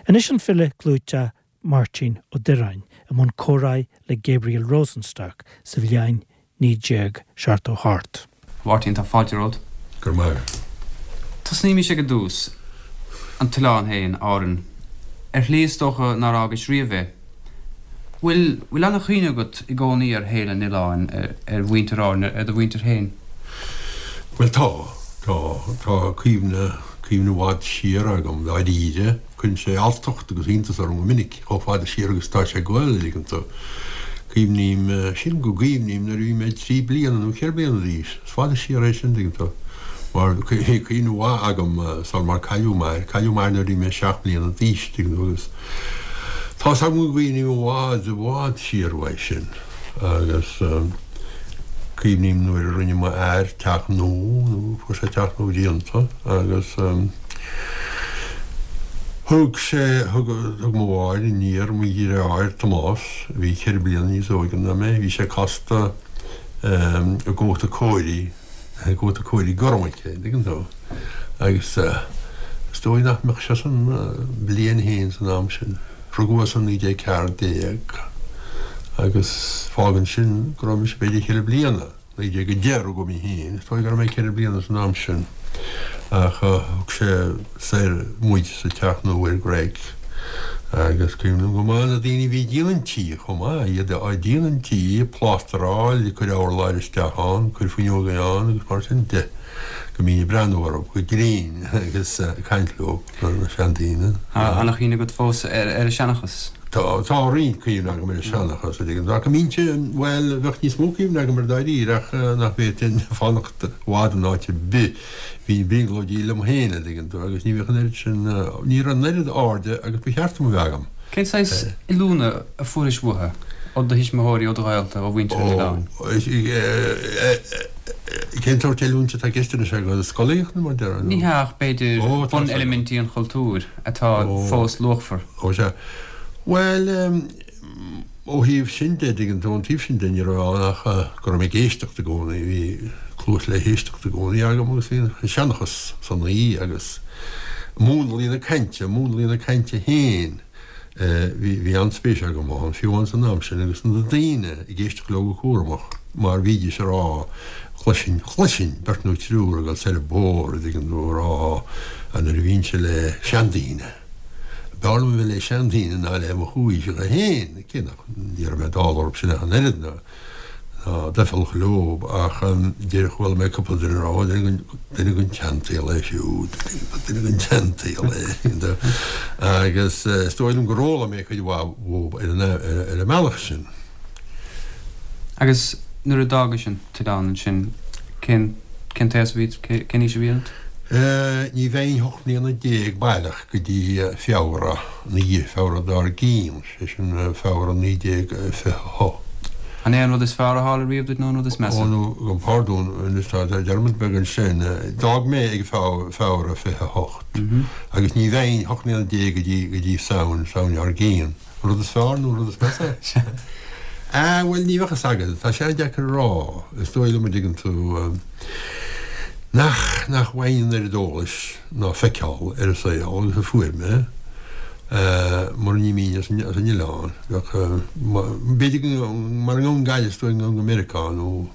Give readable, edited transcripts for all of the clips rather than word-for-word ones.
Anois an file clúiteach Máirtín Ó Direáin i mbun comhráidh le Gabriel Rosenstock sa bhliain 1978. A Mháirtín, tá fáilte romhat. Go raibh maith agat. Tosnaímis ag an dtús. An t-oileán féin, Árainn. Ar shlí is dócha nár fhágais riamh é. Bhfuil, bhfuil an-chuimhne agat i gcónaí ar shaol an oileáin, ar mhuintir Árann, ar do mhuintir féin? Bhuel tá, tá. Tá cuimhne, cuimhne i bhfad siar agam, dáiríre. Cuireann sé alltacht agus iontas orm go minic chomh fada siar agus atá sé ag goil, an dtuigeann tú. Cuimhním, sílim go gcuimhním nuair a bhí mé 3 bliana nó 4 bliana d'aois. Is fada siar é sin, an dtuigeann tú. Mar bhí cuimhne mhaith agam sul mar cailleadh m'athair. Cailleadh m'athair nuair a bhí mé 7 mbliana d'aois, an dtuigeann tú, agus tá's agam go gcuimhním i bhfad, i bhfad siar uaidh sin. Agus cuimhním nuair a rinne m'athair teach nua, nó fuair sé teach nua déanta, agus thug sé, thug, thug mo mháthair aniar mo dheartháir Tomás, a bhí ceithre bliana níos óige ná mé, bhí sé casta i gcóta cóirí, i gcóta cóirí gorm aici, an dtuigeann tú. Agus is dóigh nach mbeadh sé san bliain féin san am sin. Rugadh é san 1914 agus fágann sin go raibh mise b'fhéidir cheithre bliana, 1910 rugadh mé féin, is dóigh go raibh mé ceithre bliana san am sin. Ach thug sé soir muid sa teach nua ar Ghreg agus cuimhním go maith na daoine a bhí ag déanamh an tí chomh maith, iad ag déanamh an tí, ag plástaráil, ag cur urláir isteach ann, ag cur fuinneoga ann agus mar sin de. Go mbínn ag breathnú orthu go grinn agus ag caint leo, na seandaoine. Tá an-chuimhne agat fós ar an seanchas? Tá, tá roinnt cuimhne agam ar an seanchas, a dtuigeann tú. Ach go mbínnse, bhuel, bheadh níos mó cuimhne agam air dáiríre ach nach bhféadfainn fanacht i bhfad in áit ar bith. Bhínn ag brionglóidí liom féin, a dtuigeann tú, agus ní bheadh an oiread sin, ní raibh an oiread airde agus ba cheart dom a bheith agam. Cén saghas oiliúna a fuairis uathu, ó do thuismitheoirí, ó do ghaolta, ó mhuintir an oileáin? Cén sórt oiliúint atá i gceist anois agat? Scolaíocht nó mar déarfá? Ní hea ach b'fhéidir buneilimintí an chultúir atá fós luachmhar. Ó sea. Bhuel, ó thaobh sin de, dtuigeann tú, ón taobh sin de ní raibh ann ach go raibh mé ag éisteacht i gcónaí. Bhí cluas le héisteacht i gcónaí agam agus bhí an seanchas san aoi agus múnlaí na cainte, múnlaí na cainte féin. Bhí, bhí an-spéis agam ann, fiú amháin san am sin, agus na daoine ag éisteacht leo go cúramach, mar bhídís ag rá, chloisinn, chloisinn beirt nó triúr ag dul soir an bóthar, an dtuigeann tú, ag rá, nuair a bhínnse le seandaoine, b'fhearr liom a bheith le seandaoine ná le mo chomhaoiseacha féin, cé nach, ní raibh mé dall orthu sin ach an oiread, ná. Doicheallach leo ach deir chuala mé cúpla duine ag rá duine den tseansaol é siúd, duine den tseansaol é agus is dóigh liom gur fhoghlaim mé cuid mhaith uathu ar an mbealach sin. Agus nuair a d'fhágais an t-oileán ansin, cén cén t-aos a bhí, cén aois a bhí ionat? Ní bheinn 18 mbliana baileach go dtí Feabhra, ina dhiaidh Feabhra dár gcionn. Sé sin Feabhra 1928. An é an rud is fearr a tharla riamh duit nó an rud is measa? Ó, nó, gabh mo phardún, anois tá dearmad beag ansin. D'fhág mé ag Feabhra 28 agus ní bheinn 18 mbliana go dtí, go dtí Samhain, Samhain dár gcionn. An rud is fearr nó an rud is measa? Ah, bhuel, ní bheadh fhios agat. Tá sé an-deacair a rá. Is dóigh liom, an dtuigeann tú, nach, nach bhfaighinn an oiread eolais ná feiceáil ar an saol agus a fuair mé. Mura n-imeoinn as an oileán, bheadh, b'fhéidir go, mara ngabhfainn Gaillimh is dóigh go ngabhfainn go Meiriceá nó,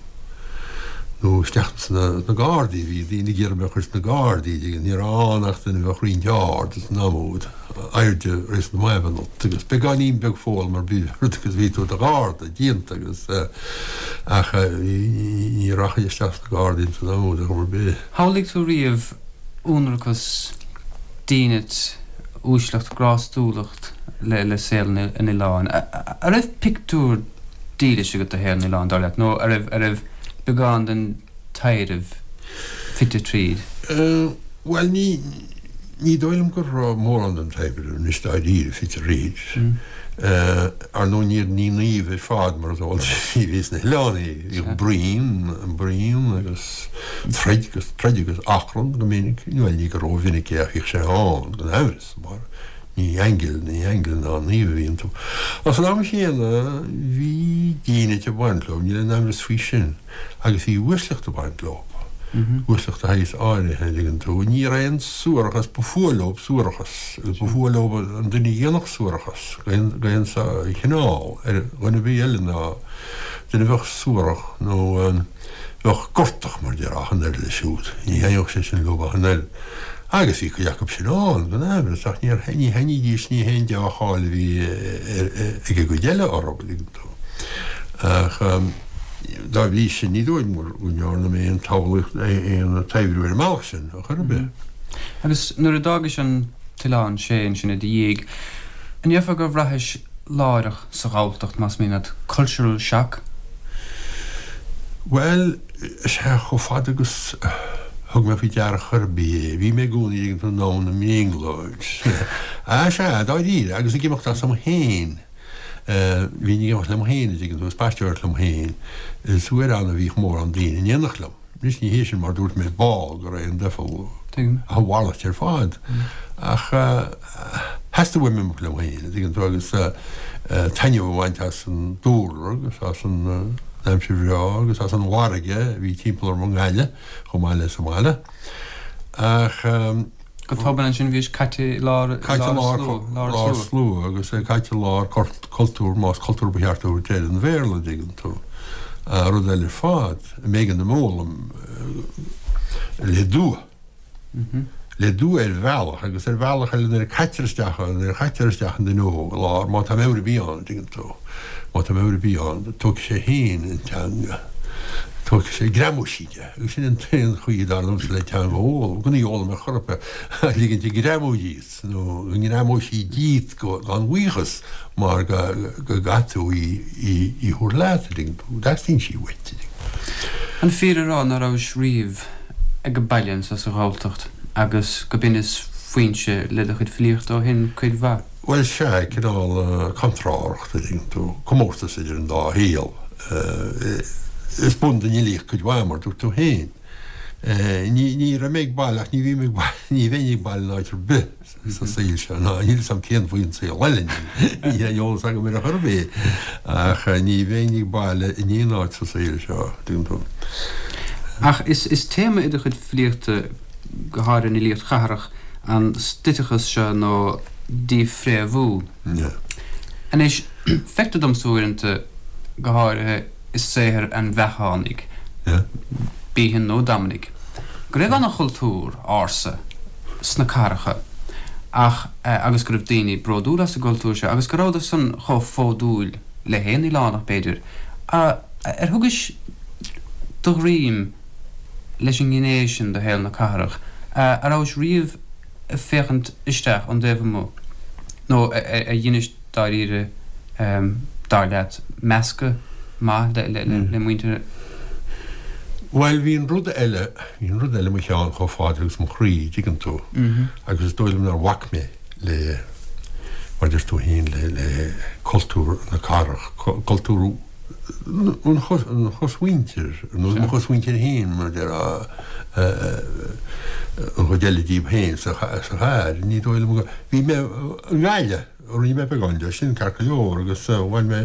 nó isteach sna Gardaí, bhí daoine ag iarraidh mé a chur sna Gardaí, ní raibh ann ach duine a bheadh roinnt ard san am úd, airde réasúnta maith a bheith ionat agus beagáinín beag foghlama ar bith ort agus bhí tú i do Gharda déanta agus ach ní rachainn isteach sna Gardaí san am úd ar chuma ar bith. Shamhlaigh tú riamh ionracas, dínit, uaisleacht, grástúlacht le saol an oileáin. An raibh pictiúr dílis agat de shaol an oileáin, dar leat, nó an raibh, an raibh beagán den taibhreamh fite tríd? Bhuel, ní, ní dóigh liom go raibh mórán den taibhreamh, anois dáiríre, fite thríd. Ar ndóigh ní, ní naoimh ar fad, mar is eol duit, a bhí sna hoileánaigh. Bhíodh bruíon, bruíon agus troid agus troid agus achrann go minic, bhuel ní go rómhinic é ach bhíodh sé ann, gan amhras, mar ní aingil, ní aingil ná naoimh a bhí iontu. Ach san am chéanna bhí dínit ag baint leo, níl aon amhras faoi sin, agus bhí uaisleacht ag baint leo. Uaisleacht de shaghas áirithe, an dtuigeann tú. Ní raibh aon suarachas, ba fuath leob suarachas, agus ba fuath leob an duine a dhéanfadh suarachas d'aon chineál ar dhuine ar bith eile ná duine a bheadh suarach nó bheadh gortach, mar déarfá, ach an oiread leis siúd. Ní thaitneodh sé sin leob ach an oiread. Agus bhí cuid acu sin ann, gan amhras, ach ní thaitnídís, ní haon deá-cháil a bhí ag an gcuid eile orthu, an dtuigeann tú. Ach. Dá bhrí sin, ní dóigh liom go ndearna mé aon tsamhlaíocht, aon taibhriú ar an mbealach sin, ar chor ar bith. Agus nuair a d'fhágais an t-oileán sé ansin i do dhiaidh, an ndéarfá gur bhraithis láithreach sa Ghalltacht, más mian leat, cultural shock? Bhuel, sea, chomh fada agus a thug mé faoi deara chor ar bith é, bhí mé i gcónaí ag an domhan i mbrionglóid. Á, sea, dáiríre, agus ag imeacht asam féin. Bhínn ag imeacht liom féin, an dtuigeann tú, ag spaisteoireacht liom féin, is uair ann a bhíodh mórán daoine in éineacht liom. Anois ní hé sin mar dúirt mé ball go raibh an duifeal ach a mhalairt ar fad. Ach theastaigh uaim imeacht liom féin, an dtuigeann tú, agus taitneamh a bhaint as an dúlra agus as an aimsir bhreá agus as an bhfarraige a bhí timpeall orm i nGaillimh chomh maith le sa mbaile. Ach. Go tobann ansin bhís caite i lár Caite i lár lár slua agus é caite i lár cultúr, más cultúr ba cheart a thabhairt air, an Bhéarla, an dtuigeann tú. Rud eile ar fad, a mb'éigean dom a fhoghlaim le dua. Le dua ar bhealach agus ar bhealach eile nuair a caitear isteach, nuair a chaitear isteach an duine óg i lár, má tá meabhair ar bith ann, an dtuigeann tú. Má tá meabhair ar bith ann, tógfaidh sé féin an teanga. Tógfaidh sé, greamóidh sí de. Agus sin an t-aon chaoi, dar liomsa, le teanga a fhoghlaim, gan í a fhoghlaim ar chor ar bith, ach ligint di greamú díot, nó go ngreamóidh sí díot gan bhuíochas, mar go gcaithfidh tú í a thabhairt leat, an dtuigeann tú, teastaíonn sí uait, an dtuigeann tú. An fíor a rá ná rabhais riamh ag baile anso sa Ghalltacht agus go b'in is foinse le do chuid filíochta ó shin cuid mhaith? Bhuel, sea, cineál contrárthacht, an dtuigeann tú, comórtas idir an dá shaol. Is bun don fhilíocht cuid mhaith, mar dúirt tú féin. Ní, ní raibh mé ag baile ach ní bhím ag baile, ní bheinn ag baile in áit ar bith sa saol seo, ná níl 'fhios a'm cén faoin saol eile, níl aon eolas agam air ar chor ar bith, ach ní bheinn ag baile in aon áit sa saol seo, an dtuigeann tú. Ach is, is téama i do chuid filíochta, go háirithe an fhilíocht chathrach, an stoiteachas seo nó dífhréamhú. Anois, feictear domsa uaireanta, go háirithe i saothar an Bheachánaigh, Behan nó Dominic, go raibh an-chultúr ársa sna cathracha ach, agus go raibh daoine bródúil as an gcultúr seo agus go rabhadar san chomh fódúil le haon oileánach, b'fhéidir. Ar thugais do dhroim leis an ngné sin de shaol na cathrach? A rabhais riamh ag féachaint isteach ón dtaobh amuigh nó ar dheinis dáiríre, dar leat, meascadh maith le muintir. Bhuel, bhí an rud eile, bhí an rud eile i mo cheann chomh fada agus mo chroí, dtuigeann tú, agus is dóigh liom nár bhac mé le, mar a deir tú féin, le cultúr na cathrach, cultúr an chosmhuintir, nó mo chosmhuintir féin, mar a déarfá, an chuid eile díobh féin sa chathair. Ní dóigh liom go. Bhí mé i nGaillimh, rinne mé beagán de sin, ceart go leor, agus bhain mé,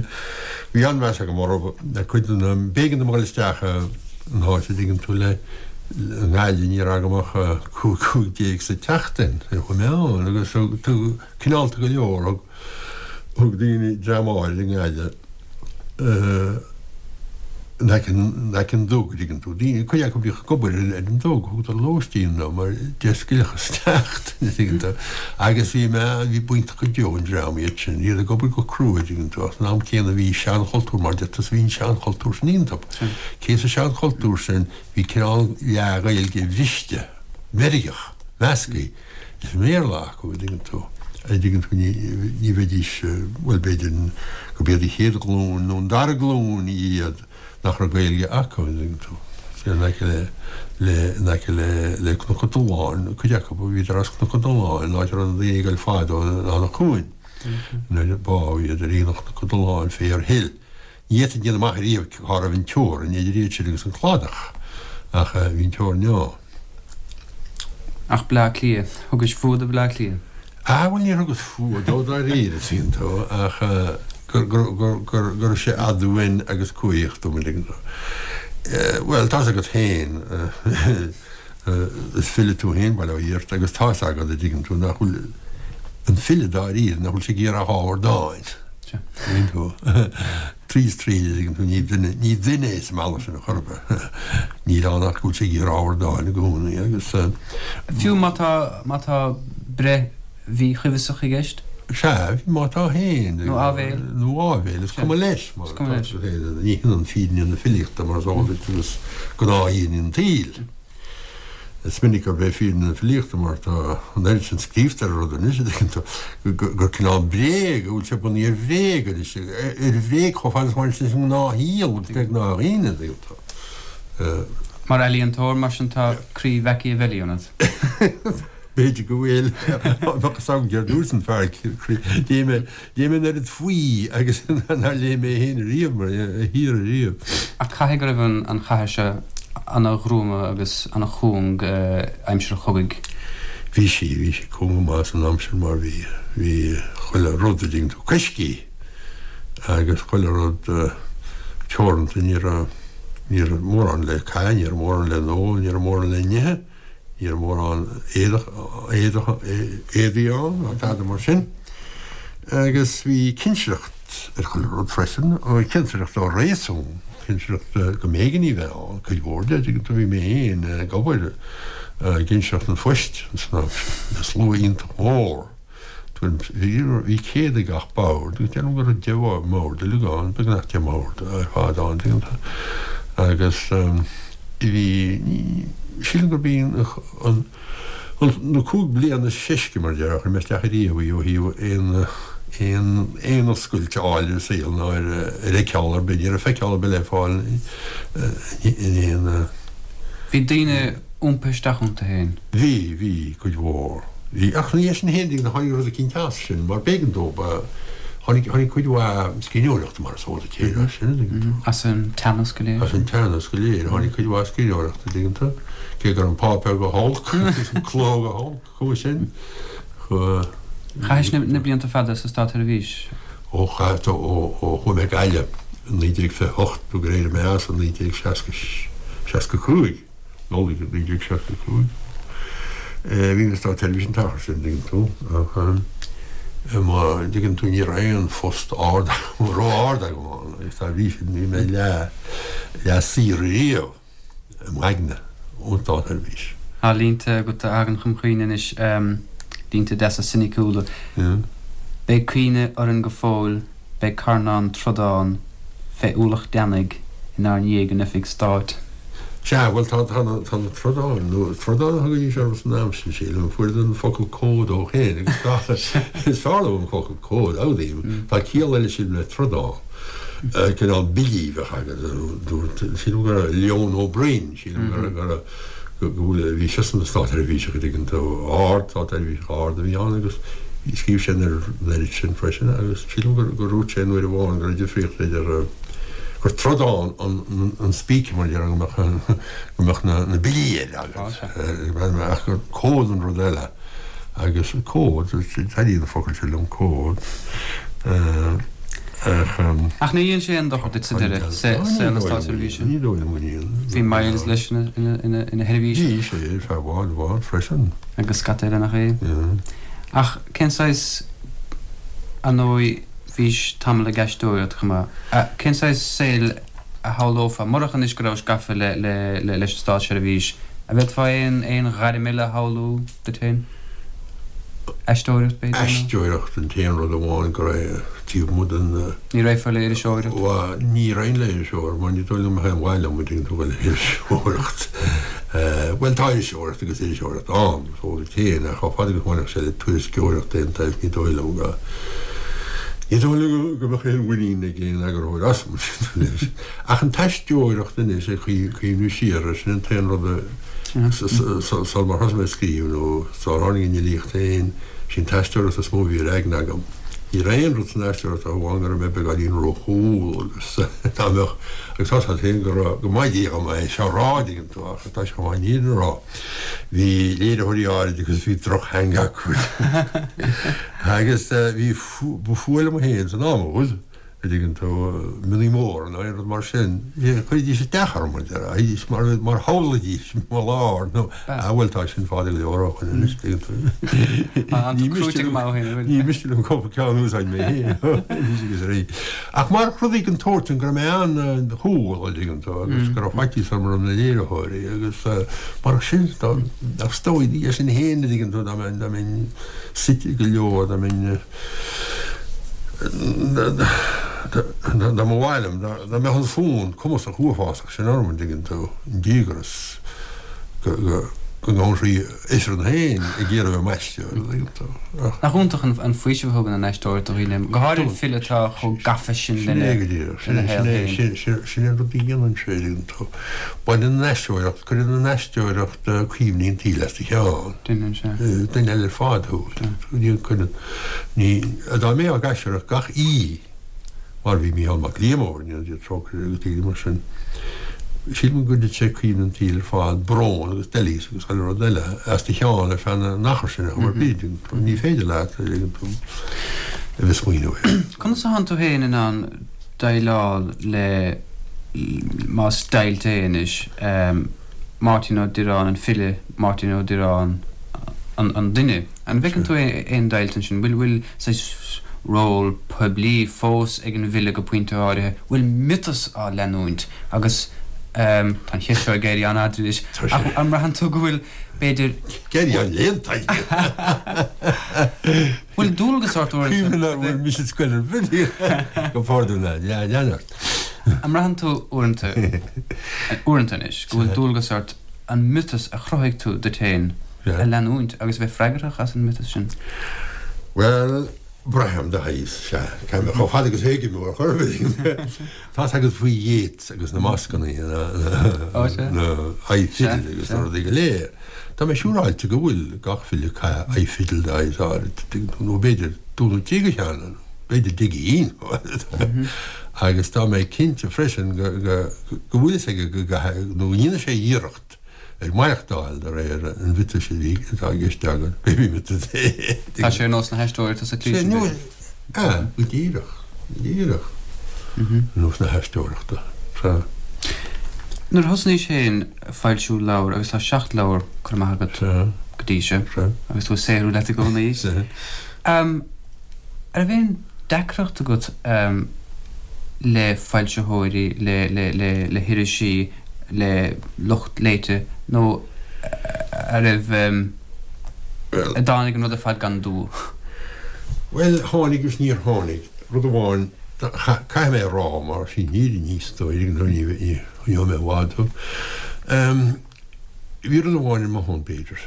bhí an-mheas agam orthu, cuid de na, b'éigean dom a dhul isteach in áit, a dtuigeann tú, le, i nGaillimh ní raibh agam ach 15 sa tseachtain, chuaigh mé ann, agus thug, cineálta go leor, thug, Thug daoine dream áirid i nGaillimh in aice in aice an duga, dtuigeann tú. Daoine, cuid acu a bhíodh ag obair ar an duga, thugadar lóistín dom mar d'éascaigh isteach, dtuigeann tú. Agus bhí mé, bhí b'iontach go deo an dream iad sin, iad ag obair go crua, dtuigeann tú, ach san am céanna bhí seanchultúr, mar deir tusa, bhí an seanchultúr sin iontu. Cé sa seanchultúr sin bhí cineál leath-Ghaeilge bhriste, mheirgeach, measctha. Leis an mBéarla acu, an dtuigeann tú. An dtuigeann tú, ní bheidís, bhuel, b'fhéidir gurb iad an chéad ghlúin nó an dara glúin iad nach raibh Gaeilge acu, an dtuigeann tú. In aice le, le, in aice le, le Cnoc an Tolláin, cuid acu, bhíodar as Cnoc an Tolláin, an áit a raibh na daoine ag goil fadó in Eanach Cuain. Nuair a bádh iad ar aonach Chnoc an Tolláin, Fair Hill. Ní fhéadfainn déanamh amach ariamh cá raibh an teorainn idir iad sin agus an cladach, ach bhí an teorainn ann. Ach Bleá Cliath, thugais fuath do Bhleá Cliath? Ah, bhuel, níor thugas fuath dó dáiríre, tuigeann tú, ach go raibh sé aduain agus cumhaidheach dom, an dtuigeann tú. Bhuel, tá's agat féin, is file tú féin, bail ó Dhia ort, agus tá's agat, a dtuigeann tú, nach bhfuil an file dáiríre, nach bhfuil sé ag iarraidh ach ábhar dáin. Tuigeann tú? Tríd is tríd, a dtuigeann tú, ní duine, ní duine é sa mbealach sin ar chor ar bith. Níl ann ach go bhfuil sé ag iarraidh ábhar dáin i gcónaí agus. Fiú má tá, má tá breith mhíchuibheasach i gceist? Sea, má tá féin. Nó áibhéil. Nó áibhéil, is cuma leis. Is cuma leis. Ní hionann fírinne na filíochta mar is eol duit agus gnáthfhírinne an tsaoil. Is minic gurb é fírinne na filíochta mar tá an oiread sin scríobhta ar an rud anois, a dtuigeann tú, gur cineál bréag, go bhfuil sé bunaithe ar bhréag anois, ar bhréag chomh fada is a bhaineann sé leis an ngnáthshaol agus le gnáthdhaoine, a dtuigeann tú. Mar ealaíontóir, mar sin, tá croí Mhachiavelli ionat. B'fhéidir go bhfuil. Bheadh fhios agam céard dúirt an fear croí. Léigh mé, léigh mé an oiread faoi agus nár léigh mé féin ariamh mar a thiar ariamh. Ach caithfidh go raibh an chathair seo ana-ghruama agus ana-chúng aimsir an chogaidh. Bhí sí, bhí sí cúng go maith san aimsir mar bhí, bhí chuile rud, a dtuigeann tú, coiscthe agus chuile rud teoranta, ní raibh, ní raibh mórán le caitheamh, ní raibh mórán le n-ól, ní raibh mórán le n-ithe. Ní raibh mórán éadach, éadach, éadaí ann ná tada mar sin. Agus bhí cinsireacht ar chuile rud freisin, cinsireacht ó réasún, cinsireacht go mb'éigean í bheith ann, cuid mhór de, tuigeann tú, bhí mé féin ag obair i gcinsireacht an phoist san am sin, le slua iontach mór. Bhí 100 ag gach bord agus déarfainn go raibh 10 mbord uilig ann, beagnach 10 mbord ar fad ann, tuigeann tú. Agus bhí, sílim gurb í an, na 5 bliana is seisce, mar a déarfá, a chuir mé isteach ariamh í ó thaobh aon, aon, aon oscailt a fháil ar an saol ná ar, ar fheiceáil ar bith, ní raibh feiceáil ar bith le fáil in aon. Bhí daoine iompaithe isteach iontu féin. Bhí, bhí, cuid mhór. Bhí, ach ina dhiaidh sin féin, tháinig rud eicínt as sin, mar b'éigean dóibh, tháinig, tháinig cuid mhaith scríbhneoireachta, mar is eol duit féin, as sin, an dtuigeann tú. As an teannas go léir. As an teannas go léir, tháinig cuid mhaith scríbhneoireachta, an dtuigeann tú, cé go raibh an páipéar go holc, agus an cló go holc, chomh sin, chomh. Chaithis na blianta fada sa Státsheirbhís? Ó chaith, ó, ó chuaigh mé go Gaillimh i 1928 nó gur éirigh mé as i 1965. Nollaig 1965. Bhí mé sa Státsheirbhís an t-achar sin, an dtuigeann tú, ach má dtuigeann tú ní raibh aon phost ard ró-ard agam ann agus dá bhrí sin bhí mé leath leath saor ariamh i m'aigne ón Státsheirbhís. Tá línte agat a thagann chun cuimhne anois, línte deasa soiniciúla. Beidh cuimhne orainn go fóill, beidh carnán trodán fé ualach deannaigh inár ndiaidh in oifig stáit. Sea, bhuel, tá, tá na, tá na trodáin, nó trodáin a thugaidís orthu san am sin, sílim, fuaireadar an focal comhad ó shin, agus tá, is fearr liom an focal comhad, admhaím. Tá ciall eile, sílim, le trodán, cineál billí a bheadh agat, dúirt, sílim go raibh Leon Ó Broin, sílim go raibh, go raibh, go bhfuil, bhí seisean ina státseirbhíseach, an dtuigeann tú, ard, státseirbhíseach ard a bhí ann agus scríobh sé an oiread sin freisin agus sílim gur, gur dhúirt sé an uair amháin go raibh difríocht idir, gur trodán an spíce mar a déarfá go mbeadh go mbeadh na billí air agat ach gur comhad an rud eile agus comhad taitníonn an focal sin liom comhad ach Ach ní dhein sé aon dochar duit sa deireadh, saol na státseirbhíse? Ní dóigh liom go ndéan. Bhí Myles leis ina sheirbhíseach. Bhí sé ar feadh i bhfad, i bhfad freisin. Agus scata eile nach é? Ach cén saghas, ar ndóigh, Bhís tamall ag aisteoireacht chomh maith. Cén saghas saoil a shamhlófá, murach anois go rabhais gafa leis an státseirbhís, an bhféadfá aon aon ghairm eile a shamhlú duit féin? Aisteoireacht, b'fhéidir, nó? Aisteoireacht an t-aon rud amháin go raibh taobh amuigh den. Ní raghfá le iriseoireacht? Bhuel, ní raghainn le iriseoireacht mar ní dóigh liom go mbeadh aon mhaith liom, an dtuigeann tú, le hiriseoireacht. Bhuel, tá iriseoireacht agus iriseoireacht ann. Is eol duit féin, ach chomh fada agus a bhainfeadh sé le tuairisceoireacht d'aon tsaghas, ní dóigh liom go, ní dóigh liom go mbeadh aon mhuinín ag aon eagarthóir asam anois. Ach an t-aisteoireacht anois, ag cuimhniú siar air, sin an t-aon rud a, sul mar thosaigh mé ag scríobh nó sár tháinig an fhilíocht féin, sí an t-aisteoireacht is mó a bhí ar aigne agam. Ní raibh aon rud san aisteoireacht ach amháin go raibh mé beagáinín róchumhal agus dá mbeadh, agus tá a fhios agat féin go raibh, go maith dhom é seo a rá, an dtuigeann tú, ach tá sé chomh maith an fhírinne a rá. Bhí léiritheoirí áirid agus bhí drochtheanga acu. Agus bhí, ba fuath liom féin san am úd. A dtuigeann tú, mionnaí móra nó aon rud mar sin, chuiridís isteach orm, a déarfá, mar, mar shamhlaídís mo lár nó, ah bhuel tá sin fada go leor ó shoin anois, tuigeann tú. Ní miste liom, ní miste liom cúpla ceann a úsáid mé féin anois agus arís. Ach mar rudaí den tsórt sin go raibh mé an-chúl, a dtuigeann tú, agus go raibh faitíos orm roimh na léiritheoirí agus mar sin, ach is dóigh é sin féin, a dtuigeann tú, dá mbeinn suite go leor, dá mbeinn, Dá mba mhaith liom, dá mbeadh an fonn cumasach uafásach sin orm, an dtuigeann tú, an díograis go ngabhann sí ifreann féin ag iarraidh a bheith i m'aisteoir, an dtuigeann tú. Nach iontach an faoiseamh a thugann an aisteoireacht do dhaoine, go háirithe file atá chomh gafa sin lena shaol féin. Sin é an rud a dhéanann sé, an dtuigeann tú. Baineann an aisteoireacht, cuireann an aisteoireacht cuimhní an tsaoil as do cheann. Déanann sé. Duine eile ar fad thú. Ní, dá mbeifeá ag aisteoireacht gach oíche, mar a bhí Mícheál Mac Liammóir, go ndéana Dia trócaire air agus daoine mar sin, sílim go gcuirfeadh sé cuimhne an tsaoil ar fad, brón agus doilíos agus chuile rud eile, as do cheann ar feadh an achair sin ar chuma ar bith. Ní féidir leat a bheith ag smaoineamh air. Conas atánn tú féin in ann déileáil le, más deighilt é anois, Máirtín Ó Direáin an file, Máirtín Ó Direáin an duine. An bhfeiceann tú aon deighilt ansin? Bhfuil, bhfuil saghas ról poiblí fós ag an bhfile go pointe áirithe? Bhfuil miotas á leanúint? Agus tá an cheist seo ag éirí an-fhada anois, ach an mbraitheann tú go bhfuil, b'fhéidir. Ag éirí an-léannta. Bhfuil dualgas ort uaireanta. Cuimhin nár bhfuil mise scoil ar bith go pardún lean ort. An mbraitheann tú uaireanta, uaireanta anois, go bhfuil dualgas ort an miotas a chruthaigh tú duit féin a leanúint agus a bheith freagrach as an miotas sin? Bhuel, braithim de shaghas, sea. Chomh fada agus a thuigim ar chor ar bith. Tá's agat faoi Yeats agus na mascanna, na aghaidh fidil agus na rudaí go léir. Tá mé siúráilte go bhfuil gach file ag caitheamh aghaidh fidil de shaghas áirid, nó b'fhéidir dó nó trí de cheann, b'fhéidir deich gcinn. Agus tá mé cinnte freisin go bhfuil fhios aige go gcaithfidh, nó go ndéanfaidh sé iarracht ar maireachtáil de réir an mhiotais a bhí, atá i gceist agat, pé miotas é. Tá sé ar nós na haisteoireachta sa tslí sin, b'fhéidir. Sea, go díreach, go díreach. Ar nós na haisteoireachta, sea. Nuair a thosnaís féin ag foilsiú leabhar, agus tá 7 leabhar curtha amach agat go dtí seo, agus tú ag saothrú leat i gcónaí, an raibh aon deacracht agat le foilsitheoirí, le hirisí, le lucht léite, nó an raibh, an dtáinig an rud ar fad gan dua? Bhuel, tháinig agus níor tháinig. Rud amháin, caithfidh mé a rá, mar sin fhírinne is dóigh, nó ní choinneoidh mé i bhfad thú. Bhí rud amháin ar mo shon, b'fhéidir,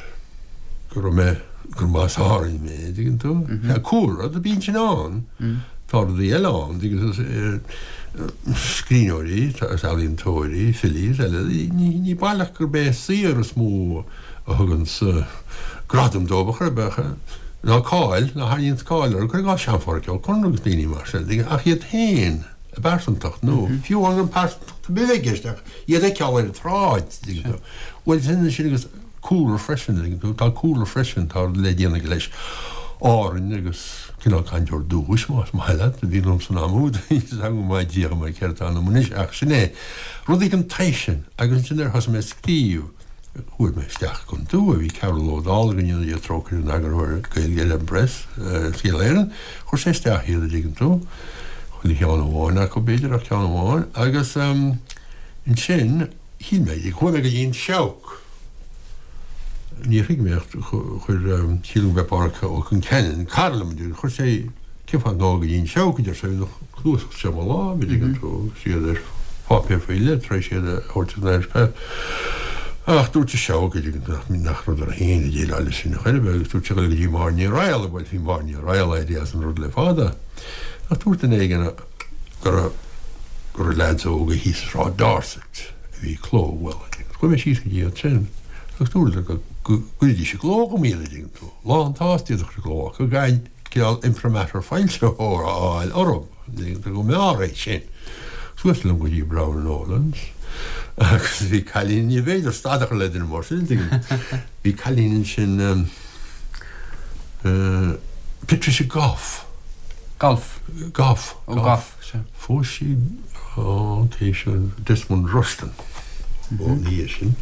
go raibh mé, gur as Árainn mé, an dtuigeann tú? Sea, cúlra, bíonn sin ann. Tá rudaí eile ann, an dtuigeann tú, scríbhneoirí agus ealaíontóirí, filí is eile, ní baileach gurb é a saothar is mó a thuganns gradam dóibh ar chor ar bith, ná cáil, ná tharraingíonns cáil orthu, cuir i gcás Sean-Pháraic Ó Conaire agus daoine mar sin, ach iad féin, a bpearsantacht, nó fiú amháin gan pearsantacht ar bith a bheith i gceist ach iad a fheiceáil ar an tsráid, tuigeann tú. Bhuel, sin sin agus cúlra freisin, tuigeann tú, tá cúlra freisin, tá rud le déanamh aige leis Árainn agus cineál cainteoir dúchais, más maith leat, a bhí ionam san am úd, níl fhios agam go maith díreach mar céard atá ionam anois ach sin é, rudaí den tsaghas sin agus ansin nuair a thosaigh mé ag scríobh, Chuaigh mé isteach gan dua, bhí Cearbhall Ó Dálaigh, go ndéana Dia trócaire air, ina eagarthóir Gaeilge ar an bPress, Saol Éireann. Chuir sé isteach iad, a dtuigeann tú. Chuile cheann amháin acu, b'fhéidir, ach ceann amháin. Agus ansin, shíl mé, chuaigh mé go dtí an Seabhac. Níor thuig mé ach chuir, sílim go mb'é Pádhraic Ó Concheanainn, cara liom, chuir sé, Cén fáth nach ngabhfá go dtí an Seabhac, a deir sé, bhí na cnuasaigh seo i mo láimh, a dtuigeann tú, agus iad ar pháipéar faoi leith tar éis iad a thabhairt san Irish Press. Ach dúirt an Seabhac, a dtuigeann tú, nach rud orthu féin a dhéileáil leis sin chor ar bith, agus dúirt sé dul go dtí Máire Ní Raghallaigh, bhuel, bhí Máire Ní Raghallaigh éirithe as an rud le fada. Ach dúirt duine éigin go raibh, go raibh leaids óga thíos i Sráid Dorset a bhí ag clóbhualadh. Chuaigh mé síos go dtí iad sin agus dúradar go gcuirfidís i gcló dhom iad, a dtuigeann tú, lánsásta iad a chur i gcló, ach go gcaithfinn cineál imprimatur foilsitheora a fháil orthu, go mb'fhearr é sin. Suas liom go dtí Brown and Nolan's agus bhí cailín, ní féidir stad a chur le duine mar sin, tuigim. Bhí cailín ansin, Patricia Goff. Golf. Goff. Ó Goff, sea. Phós sí an té sin, Desmond Rushton, ina dhiaidh sin,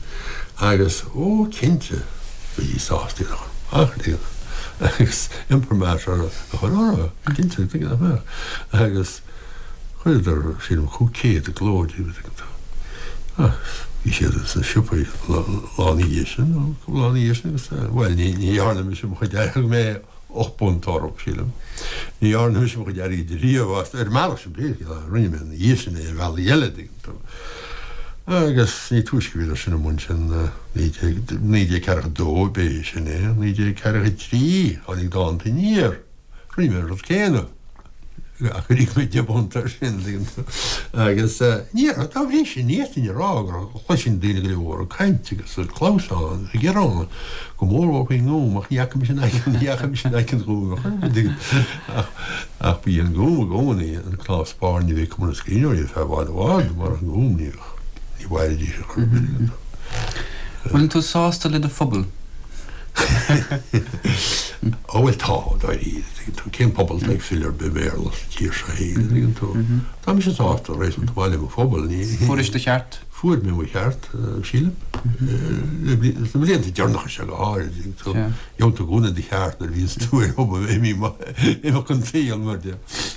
agus, ó, cinnte, bhídís sásta iad a chur amach, tuigeann tú, agus imprimatur a chur orthu, cinnte, tuigeann nach mbeadh. Agus chuireadar, sílim, 500 i gcló díobh, tuigeann tú. Agus bhí siad sna siopaí lá ina dhiaidh sin, nó cúpla lá ina dhiaidh sin, agus, bhuel, ní dhearna mise mo chuid, thug mé 8 bpunt orthu, sílim. Ní dhearna mise mo chuid airgid riamh astu, ar an mbealach sin, pé scéal é, rinne mé ina dhiaidh sin é ar bhealaí eile, an dtuigeann tú. Agus ní túisce a bhíodar sin amuigh ansin, 1942 b'é sin é, 1943 tháinig Dánta Aniar, rinne mé an rud céanna. Ach gur íoc mé 10 bpunt air sin, an dtuigeann tú. Agus ní, dá bhrí sin, ní fhéadfainn a rá go gcloisinn daoine go leor ag caint agus ag clamhsán agus ag gearán go mórmhór faoin nGúm, ach ní fhaca mise in aice, ní fhaca mise in aice an Ghúim ar chor ar bith, an dtuigeann tú. Ach, ach ba í an Gúm i gcónaí an cnámh spairne a bhí ag Cumann na Scríbhneoirí ar feadh i bhfad i bhfad, murach an Gúm ní bheadh, ní mhairfidís ar chor ar bith, an dtuigeann tú. Bhfuileann tú sásta le do phobal? Ó bhuel tá, dáiríre, tuigeann tú, cén pobal atá ag file ar bith Béarla sa tír seo fhéin, an dtuigeann tú? Tá mise sásta réasúnta maith le mo phobal, ní. Fuairis do cheart? Fuair mé mo cheart, sílim. Sna blianta deireanacha seo go háirid, tuigeann tú. Gheobhann tú i gcónaí do cheart nuair a bhíonns tú ar obair, imeacht an tsaoil, mar a déarfá.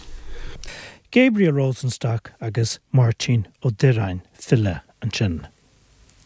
Gabriel Rosenstock agus Máirtín Ó Direáin, file, ansin.